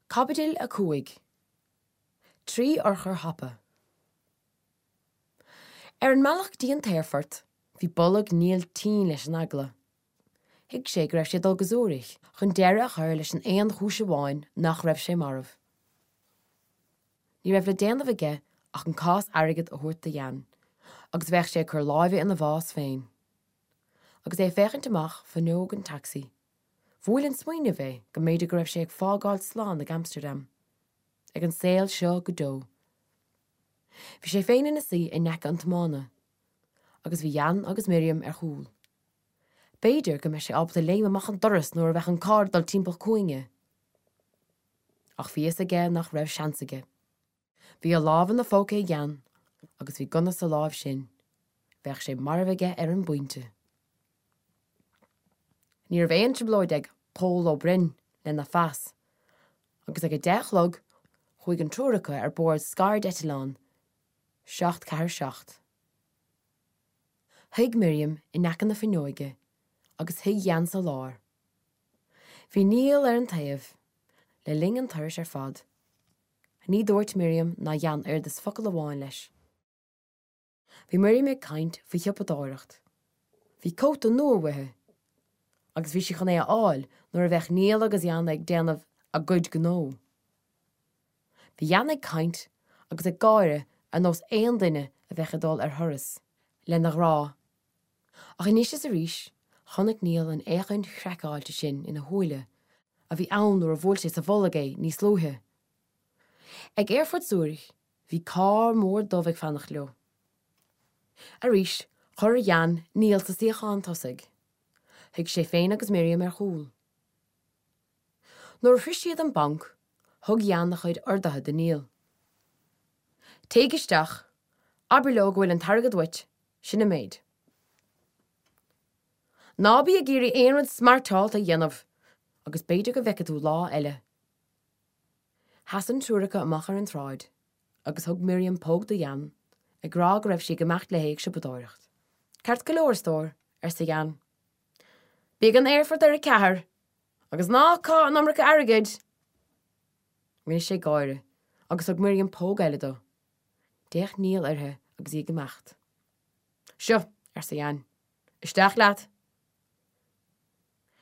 Caibidil 5. 3 Urchar Thapa. Ar an mbealach go dtí an t-aerfort, bhí bolg Neil tinn leis an eagla. Thuig sé go raibh sé ag dul go Zürich chun deireadh a chur leis an aon chúis amháin nach raibh sé marbh. Ní raibh le déanamh aige ach an cás airgid a thabhairt do Jan agus bheadh sé ag cur láimhe ina bhás féin. Agus é ag féachaint amach fuinneog an tacsaí, Bhuail an smaoineamh é go mb'fhéidir go raibh sé ag fágáil slán ag Amsterdam, ag an saol seo go deo. Bhí sé féin ina suí in aice an tiomána, agus bhí Jan agus Miriam ar chúl. B'fhéidir go mbeadh sé ábalta léim amach an doras nuair a bheadh an carr ag dul timpeall cúinge. Ach bhí fhios aige nach raibh seans aige. Bhí a lámh ina phóca ag Jan agus bhí gunna sa láimh sin. Bheadh sé marbh aige ar an bpointe. Ní raibh aon trioblóid ag Pól Ó Broin lena phas agus ag a deich a chlog chuaigh an triúr acu ar bord scairdeitleán 747. Shuigh Miriam in aice na fuinneoige agus shuigh Jan sa lár. Bhí Niall ar an taobh le linn an turais ar fad. Ní dúirt Miriam ná Jan oiread is focal amháin leis. Bhí Miriam ag caint faoi shiopadóireacht. Bhí cóta nua uaithi agus bhí sí chun é a fháil nuair a bheadh Niall agus Jan ag déanamh a gcuid gnó. Bhí Jan ag caint agus ag gáire ar nós aon duine a bheadh ag dul ar thuras lena ghrá. Ach anois is arís chonaic Niall an fhéachaint chraiceáilte sin ina shúile a bhí ann nuair a bhuail sé sa bholg é níos luaithe. Ag aerfort Zürich Bhí carr mór dubh ag fanacht leo. Arís, chuir Jan Niall sa suíochán tosaigh. Shuigh sé féin agus Miriam ar chúl. Nuair a shroich siad an banc, thug Jan a chuid orduithe do Niall. Téigh isteach, abair leo go bhfuil an t-airgead uait, sin an méid. Ná bí ag iarraidh aon rud smeairteálta a dhéanamh agus b'fhéidir go bhfeicfidh tú lá eile. Sheas an triúr acu amach ar an tsráid agus thug Miriam póg do Jan, ag rá go raibh sí ag imeacht léi ag siopadóireacht. Ceart go leor, a stór, arsa Jan. Bí ag an aerfort ar a ceathair, agus ná caith an iomarca airgid! Rinne sé gáire agus thug Miriam póg eile dó. D'fhéach Niall uirthi agus í ag imeacht. Seo, arsa Jan. Isteach leat!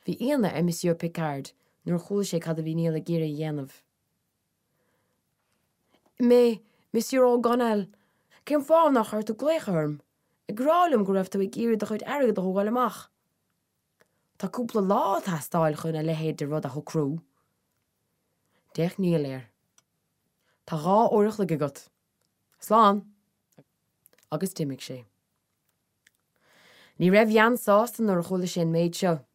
Bhí ionadh ar Monsieur Picard nuair a chuala sé cad a bhí Niall ag iarraidh a dhéanamh. Mais, Monsieur O'Gonnell, cén fáth nár chuir tú glaoch orm, ag rá liom go raibh tú ag iarraidh do chuid airgid a thógáil amach? Tá cúpla lá ag teastáil chun a leithéid de rud a shocrú. D'fhéach Niall air. Tá dhá uair a chloig agat. Slán! Agus d'imigh sé. Ní raibh Jan sásta nuair a chuala sé an méid seo,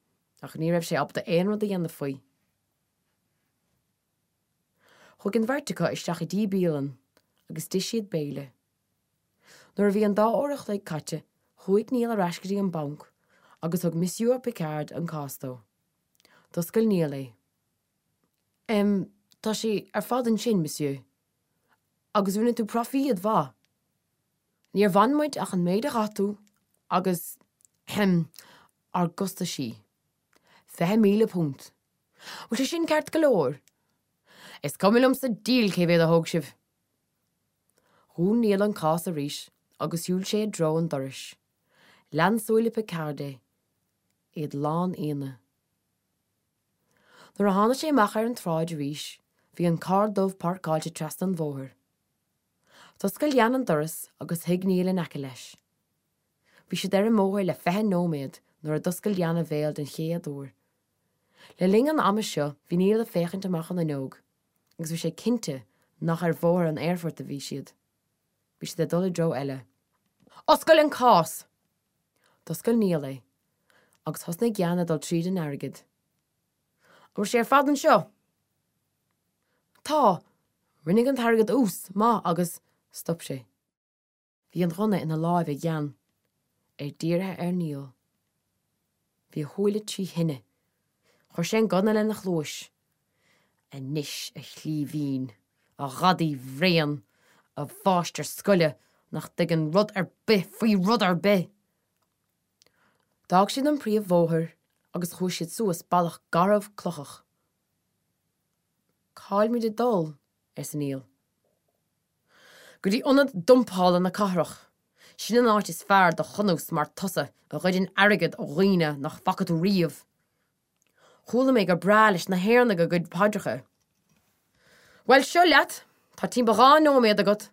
ach ní raibh sé ábalta aon rud a dhéanamh faoi. Chuaigh an bheirt acu isteach i dtí bialann agus d'ith siad béile. Nuair a bhí an dá uair a chloig caite, chuaigh Niall ar ais go dtí an banc agus thug Monsieur Picard an cás dó. D'oscail Niall é. Em, tá sé ar fad ansin, Monsieur. Agus rinne tú proifíod mhaith. Níor bhain muid ach an méid a chaith tú agus, ahem, ár gcostaisí. £20,000. Bhfuil sé sin ceart go leor? Is cuma liom sa diabhal cé mhéad a thóg sibh! Dhún Niall an cás arís agus shiúil sé i dtreo an dorais. Lean súile Picard é, iad lán ionaidh. Nuair a tháinig sé amach ar an tsráid arís bhí an carr dubh páirceáilte trasna an bhóthair. D'oscail Jan an doras agus shuigh Niall in aice leis. Bhí siad ar an mbóthar le 20 nóiméad nuair a d'oscail Jan a bhéal den chéad uair. Le linn an ama seo bhí Niall ag féachaint amach an fhuinneog agus bhí sé cinnte nach ar bhóthar an aerfoirt a bhí siad. Bhí siad ag dul i dtreo eile. Oscail an cás! D'oscail Niall é agus thosnaigh Jan ag dul tríd an airgead. An bhfuil sé ar fad anseo? Tá! Rinne an t-airgead ús maith agus stop sé. Bhí an gunna ina láimh ag Jan, é dírithe ar Niall. Bhí a shúile trí thine. Chuir sé an gunna lena chluais. Anois, a chlíbhín, a ghadaí bhréan, a mháistir scoile nach dtuigeann rud ar bith faoi rud ar bith! D'fhág siad an príomhbhóthar agus chuaigh siad suas bealach garbh clochach. Cá'il muid ag dul? arsa Niall. Go dtí ionad dumpála na cathrach. Sin an áit is fearr do chunús mar tusa a ghoideann airgead ó dhaoine nach bhfaca tú riamh. Chuala mé gur breá leis na hÉireannaigh a gcuid paidreacha. Bhuel, seo leat, tá timpeall 2 nóiméad agat.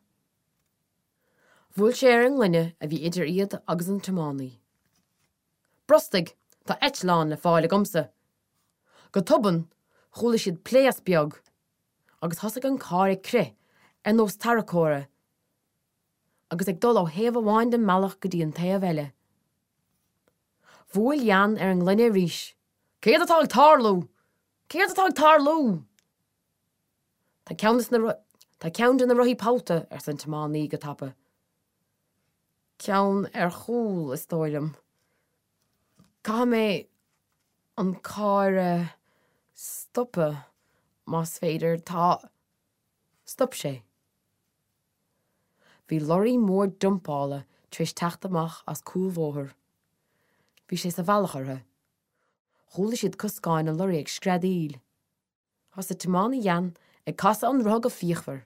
Bhuail sé ar an ngloine a bhí idir iad agus an tiománaí. Brostaigh, tá eitleán le fáil agamsa. Go tobann, chuala siad pléasc beag agus thosaigh an carr ag crith ar nós tarracóra agus ag dul ó thaobh amháin den mbealach go dtí an taobh eile. Bhuail Jan ar an ngloine arís. Céard atá ag tarlú? Céard atá ag tarlú? Tá ceann de na Tá ceann de na rothaí pollta, arsa an tiománaí go tapa. Ceann ar chúl, is dóigh liom. Caithfidh mé an carr a stopadh, más féidir. Tá. Stop sé. Bhí lorraí mór dumpála tar éis teacht amach as cúlbhóthar. Bhí sé sa bhealach orthu. Chuala siad coscáin an lorraí ag screadaíl. Thosaigh tiománaí Jan ag casadh an rotha go fíochmhar,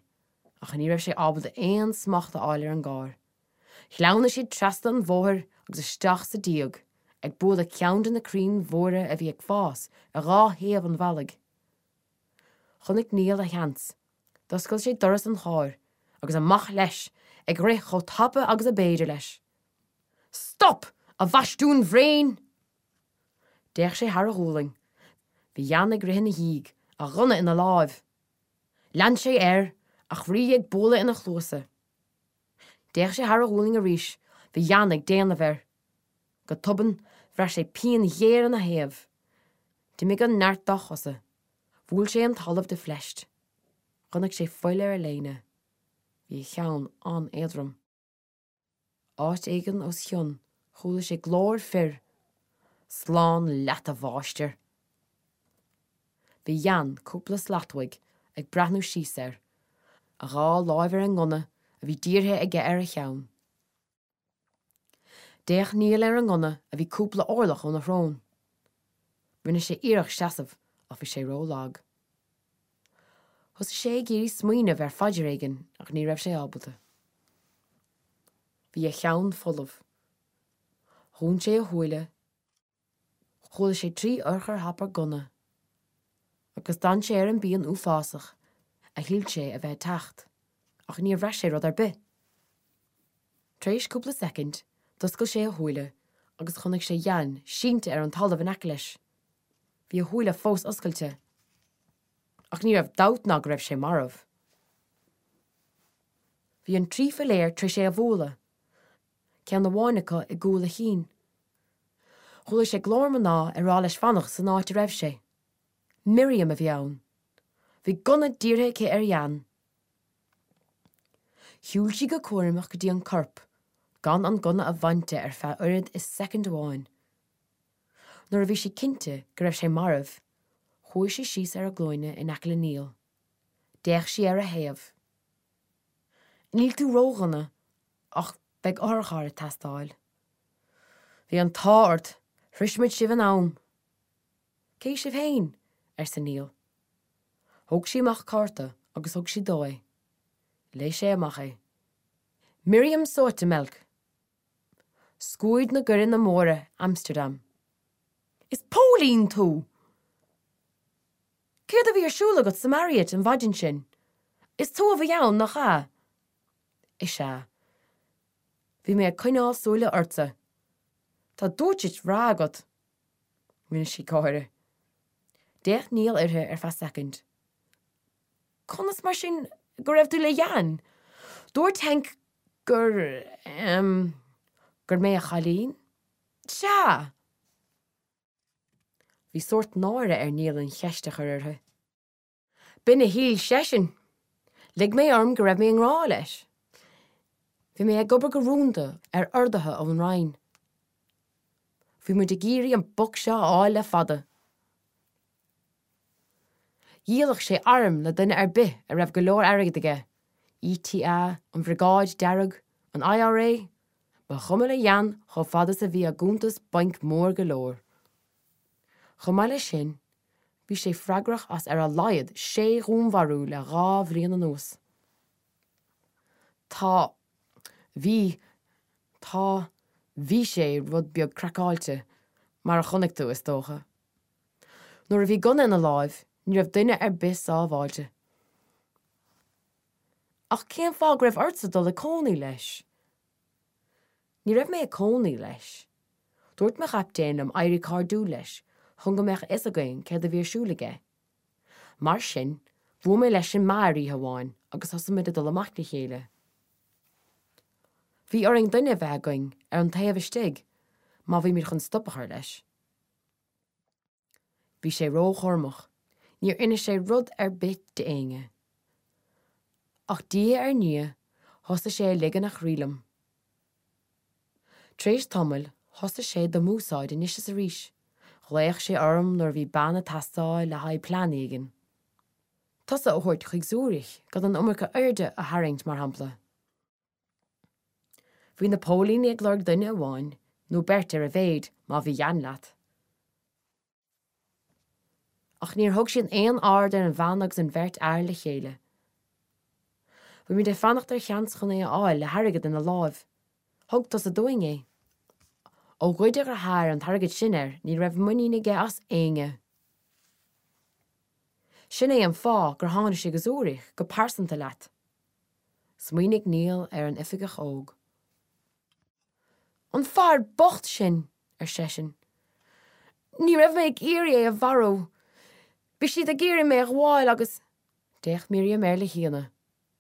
ach ní raibh sé ábalta aon smacht a fháil ar an gcarr. Shleamhnaigh siad trasna an bhóthair agus isteach sa díog, ag bualadh ceann de na crainn mhóra a bhí ag fás ar dhá thaobh an bhealaigh. Chonaic Niall a sheans. D'oscail sé doras an chairr agus amach leis, ag rith chomh tapa agus ab fhéidir leis. Stop, a bhastiúin bhréin! D'fhéach sé thar a ghualainn. Bhí Jan ag rith ina dhiaidh, a ghunna ina láimh. Lean sé air, a chroí ag bualadh ina chluasa. D'fhéach sé thar a ghualainn arís, bhí Jan ag déanamh air. Go tobann, bhraith sé pian ghéar ina thaobh. D'imigh an neart dá chosa. Bhuail sé an talamh de phleist. Chonaic sé fuil ar a léine. Bhí a cheann an-éadrom. Áit éigin os a chionn chuala sé glór fir, Slán leat, a mháistir! Bhí Jan cúpla slat uaidh ag breathnú síos air, a dhá láimh ar an ngunna a bhí dírithe aige ar a cheann. D'fhéach Niall ar an ngunna a bhí cúpla orlach óna shrón. Rinne sé iarracht seasamh ach bhí sé ró-lag. Thosaigh sé ag iarraidh smaoineamh ar phaidir éigin ach ní raibh sé ábalta. Bhí a cheann folamh. Dhún sé a shúile. Chuala sé trí urchar thapa gunna. Agus d'fhan sé ar an bpian uafásach a shíl sé a bheith ag teacht, ach níor bhraith sé rud ar bith. Tar éis cúpla soicind, d'oscail sé a shúile agus chonaic sé Jan sínte ar an talamh in aice leis. Bhí a shúile fós oscailte. Ach ní raibh dabht ná go raibh sé marbh. Bhí an trí philéar tar éis é a bhualadh, ceann amháin acu i gcúl a chinn. Chuala sé glór mná ag rá leis fanacht san áit a raibh sé. Miriam a bhí ann. Bhí gunna dírithe aici ar Jan. Shiúil sí go cúramach go dtí an corp, gan an gunna a bhaint de ar feadh oiread is soicind amháin. Nuair a bhí sí cinnte go raibh sé marbh, chuaigh sí síos ar a glúine in aice le Niall. D'fhéach sí ar a thaobh. Níl tú ródhona, ach beidh otharcharr ag teastáil. Bhí an t-ádh ort, shrois muid sibh in am. Cé sibh féin? arsa Niall. Thóg sí amach cárta agus thug sí dó é. Léigh sé amach é. Miriam Zoetemelk! Scuad na gCoireanna Móra, Amsterdam. Is póilín tú! Céard a bhí ar siúl agat sa Marriott an mhaidin sin? Is tú a bhí ann, nach ea? Is ea. Bhí mé ag coinneáil súile ortsa. Tá dúirt bhreá agat. Rinne sí gáire. D'fhéach Niall uirthi ar feadh soicind. Conas mar sin go raibh tú le Jan? Dúirt Henk gur, em, gur mé a chailín? Sea! Bhí sórt náire ar Niall an cheist a chur uirthi. B'in a shíl seisean! Lig mé orm go raibh mé i ngrá leis. Bhí mé ag obair go rúnda ar orduithe ón Roinn. Bhí muid ag iarraidh an boc seo a fháil le fada. Dhíolfadh sé airm le duine ar bith a raibh go leor airgid aige, ETA, an Bhriogáid Dearg, an IRA, ba chuma le Jan chomh fada is a bhí a gcuntas bainc mór go leor. Chomh maith leis sin, Bhí sé freagrach as ar a laghad sé dhúnmharú le 2 bhliain anuas. Tá. Bhí. Tá. Bhí sé rud beag craiceáilte, mar a chonaic tú, is dócha. Nuair a bhí gunna ina láimh, ní raibh duine ar bith sábháilte. Ach cén fáth go raibh ortsa dul ag cónaí leis? Ní raibh mé ag cónaí leis. Dúirt mo chaptaen liom éirí cairdiúil leis chun go mbeadh a fhios againn céard a bhí ar siúl aige. Mar sin, bhuail mé leis i mbeár oíche amháin agus thosaigh muid ag dul amach le chéile. Bhí orainn duine a bheith againn ar an taobh istigh má bhí muid chun stop a chur leis. Bhí sé róchúramach, níor inis sé rud ar bith d'éinne. Ach diaidh ar ndiaidh thosaigh sé ag ligean a chroí liom. Tar éis tamaill thosaigh sé do m'úsáid anois is arís, ghlaoch sé orm nuair a bhí bean ag teastáil le haghaidh plean éigin. Tusa a thabhairt chuig Zürich gan an iomarca airde a tharraingt, mar shampla. Bhí na póilíní ag lorg duine amháin, nó beirt ar a mhéid, má bhí Jan leat. Ach níor thug siad aon aird ar an bhean agus an bheirt fhear le chéile. Bhí muid ag fanacht ar sheans chun é a fháil le hairgead ina láimh. Thug tusa dúinn é. Ó ghoid a dheartháir an t-airgead sin air ní raibh muinín aige as éinne. Sin é an fáth gur tháinig sé go Zürich go pearsanta leat. Smaoinigh Niall ar an oifigeach óg. An fear bocht sin! ar seisean. Ní raibh mé ag iarraidh é a mharú. Bhí siad ag iarraidh mé a ghabháil agus. D'fhéach Miriam air le hionadh.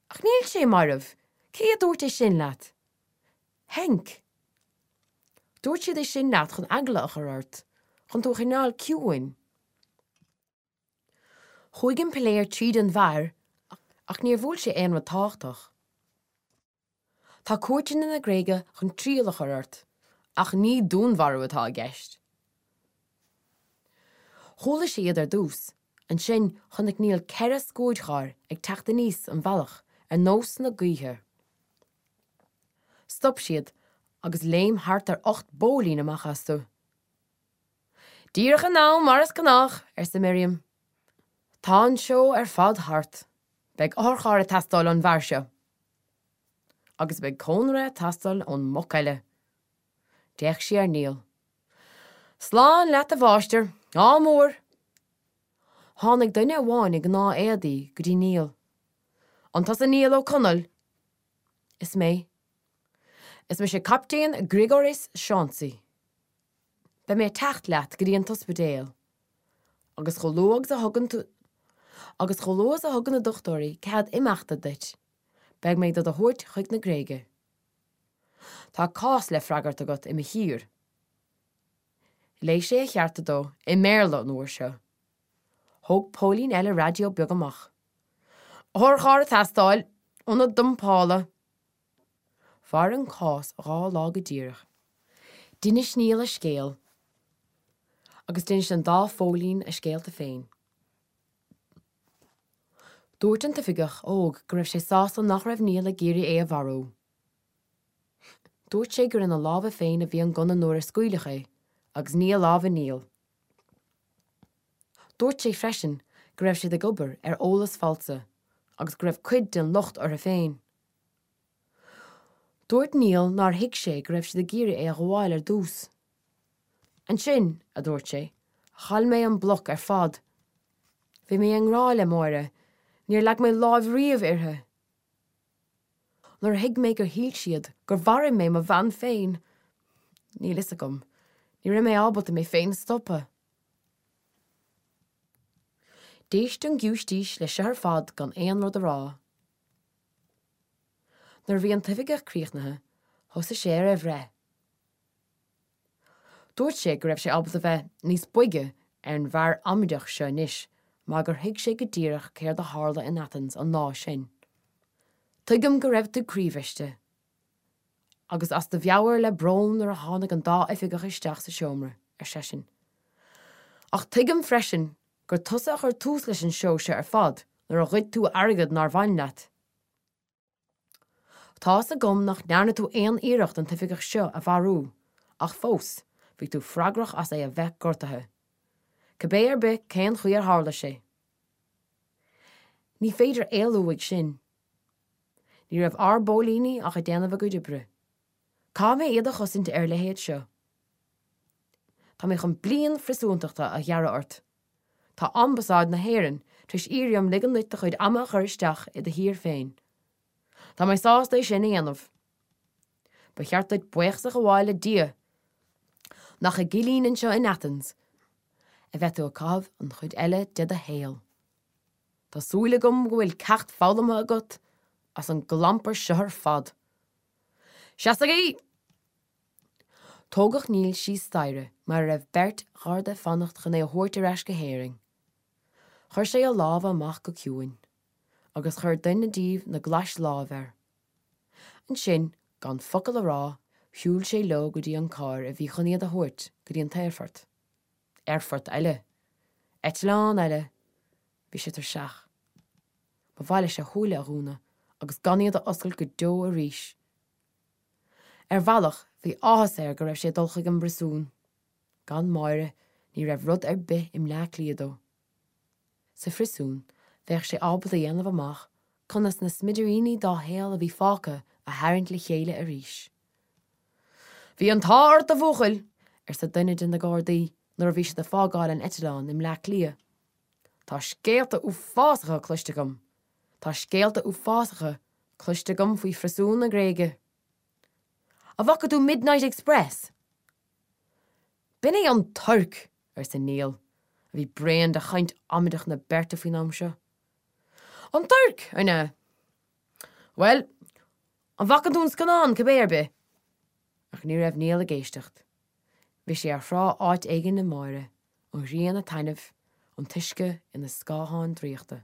Ach níl sé marbh! Cé a dúirt é sin leat? Henk. Dúirt siad é sin leat chun eagla a chur ort, chun tú a choinneáil ciúin. Chuaigh an piléar tríd an bhfear ach níor bhuail sé aon rud tábhachtach. Tá cúirteanna na Gréige chun triail a chur ort, ach ní dúnmharú atá i gceist. Chuala sé iad ar dtús, ansin chonaic Niall 4 scuadcharr ag teacht aníos an bhealach ar nós na gaoithe. Stop siad agus léim thart ar 8 bpóilín amach astu. Díreach in am, mar is gnách, arsa Miriam. Tá an seó ar fad thart. Beidh otharcharr ag teastáil ón bhfear seo. Agus beidh cónra ag teastáil ón mboc eile. D'fhéach sí ar Niall. Slán leat a mháistir. Ádh mór! Tháinig duine amháin i ngnáth-éadaí go dtí Niall. An tusa Niall Ó Conaill? Is mé. Is mise Captaen Grigoris Chauncey. Beidh mé ag teacht leat go dtí an t-ospidéal. Agus chomh luath agus a thugann tú Agus chomh luath is a thugann na dochtúirí cead imeachta duit, beidh mé do do thabhairt chuig na Gréige. Tá cás le freagairt agat i mo thír. Léigh sé a chearta dó, i mBéarla an uair seo. Thóg póilín eile raidió beag amach. Otharcharr ag teastáil, ionad dumpála. Mhair an cás 2 lá go díreach. D'inis Niall a scéal agus d'inis an dá phóilín a scéalta féin. Dúirt an t-oifigeach óg go raibh sé sásta nach raibh Niall ag iarraidh é a mharú. Dúirt sé gur ina lámha féin a bhí an gunna nuair a scaoileadh é agus ní i lámha Niall. Dúirt sé freisin go raibh siad ag obair ar eolas falsa agus go raibh cuid den locht orthu féin. Dúirt Niall nár thuig sé go raibh siad ag iarraidh é a ghabháil ar dtús. Ansin, a dúirt sé, chaill mé an bloc ar fad. Bhí mé i ngrá le Máire, níor leag mé láimh riamh uirthi. Nuair a thuig mé gur shíl siad gur mharaigh mé mo bhean féin, níl fhios agam, ní raibh mé ábalta mé féin a stopadh. D'éist an giúistís leis seo ar fad gan aon rud a rá. Nuair a bhí an t-oifigeach críochnaithe, thosaigh sé ar a bhreith. Dúirt sé go raibh sé ábalta bheith níos boige ar an bhfear amaideach seo anois mar gur thuig sé go díreach céard a tharla in Athens an lá sin. Tuigim go raibh tú croíbhriste agus as do mheabhair le brón nuair a tháinig an dá oifigeach isteach sa seomra, ar seisean. Ach tuigim freisin gur tusa a chuir tús leis an seó seo ar fad nuair a ghoid tú airgead nár bhain leat. Tá's agam nach ndearna tú aon iarracht an t-oifigeach seo a mharú, ach fós, bhí tú freagrach as é a bheith gortaithe. Cibé ar bith cén chaoi ar tharla sé. Ní féidir éalú uaidh sin. Ní raibh ár bpóilíní ach ag déanamh a gcuid oibre. Caithfidh mé iad a chosaint ar a leithéid seo. Tá mé chun bliain phriosúntachta a ghearradh ort. Tá Ambasáid na hÉireann tar éis iarraidh orm ligean duit do chuid ama a chur isteach i do thír féin. Tá mé sásta é sin a dhéanamh. Ba cheart duit buíochas a ghabháil le Dia nach i gcillín anseo in Athens a bheidh tú ag caitheamh an chuid eile de do shaol. Tá súil agam go bhfuil ceacht foghlamtha agat as an gclampar seo ar fad. Seasaigí! Tógadh Niall síos staighre mar a raibh beirt gharda ag fanacht chun é a thabhairt ar ais go hÉirinn. Chuir sé a lámha amach go ciúin, agus chuir duine díobh na glais láimhe air. Ansin, gan focal a rá, shiúil sé leo go dtí an carr a bhí chun iad a thabhairt go dtí an t-aerfort. Aerfort eile. Eitleán eile. Bhí sé tuirseach. Ba mhaith leis a shúile a dhúnadh agus gan iad a oscailt go deo arís. Ar bhealach, bhí áthas air go raibh sé ag dul chuig an bpriosún. Gan Máire, ní raibh rud ar bith i mBleá Cliath dó. Sa phriosún, bheadh sé ábalta a dhéanamh amach conas na smidiríní dá shaol a bhí fágtha a tharraingt le chéile arís. Bhí an t-ádh ort, a bhuachaill, arsa duine de na gardaí nuair a bhí siad ag fágáil an eitleáin i mBleá Cliath. Tá scéalta uafásacha cloiste agam. Tá scéalta uafásacha cloiste agam faoi phriosúin na Gréige. An bhfaca tú Midnight Express? B'in é an Tuirc! arsa Niall, a bhí bréan de chaint amaideach na beirte faoin am seo. An Tuirc, an ea? Bhuel, an bhfaca tú an scannán, cibé ar bith? Ach ní raibh Niall ag éisteacht. Bhí sé ar thrá áit éigin le Máire, an ghrian ag taitneamh, an t-uisce ina scátháin draíochta.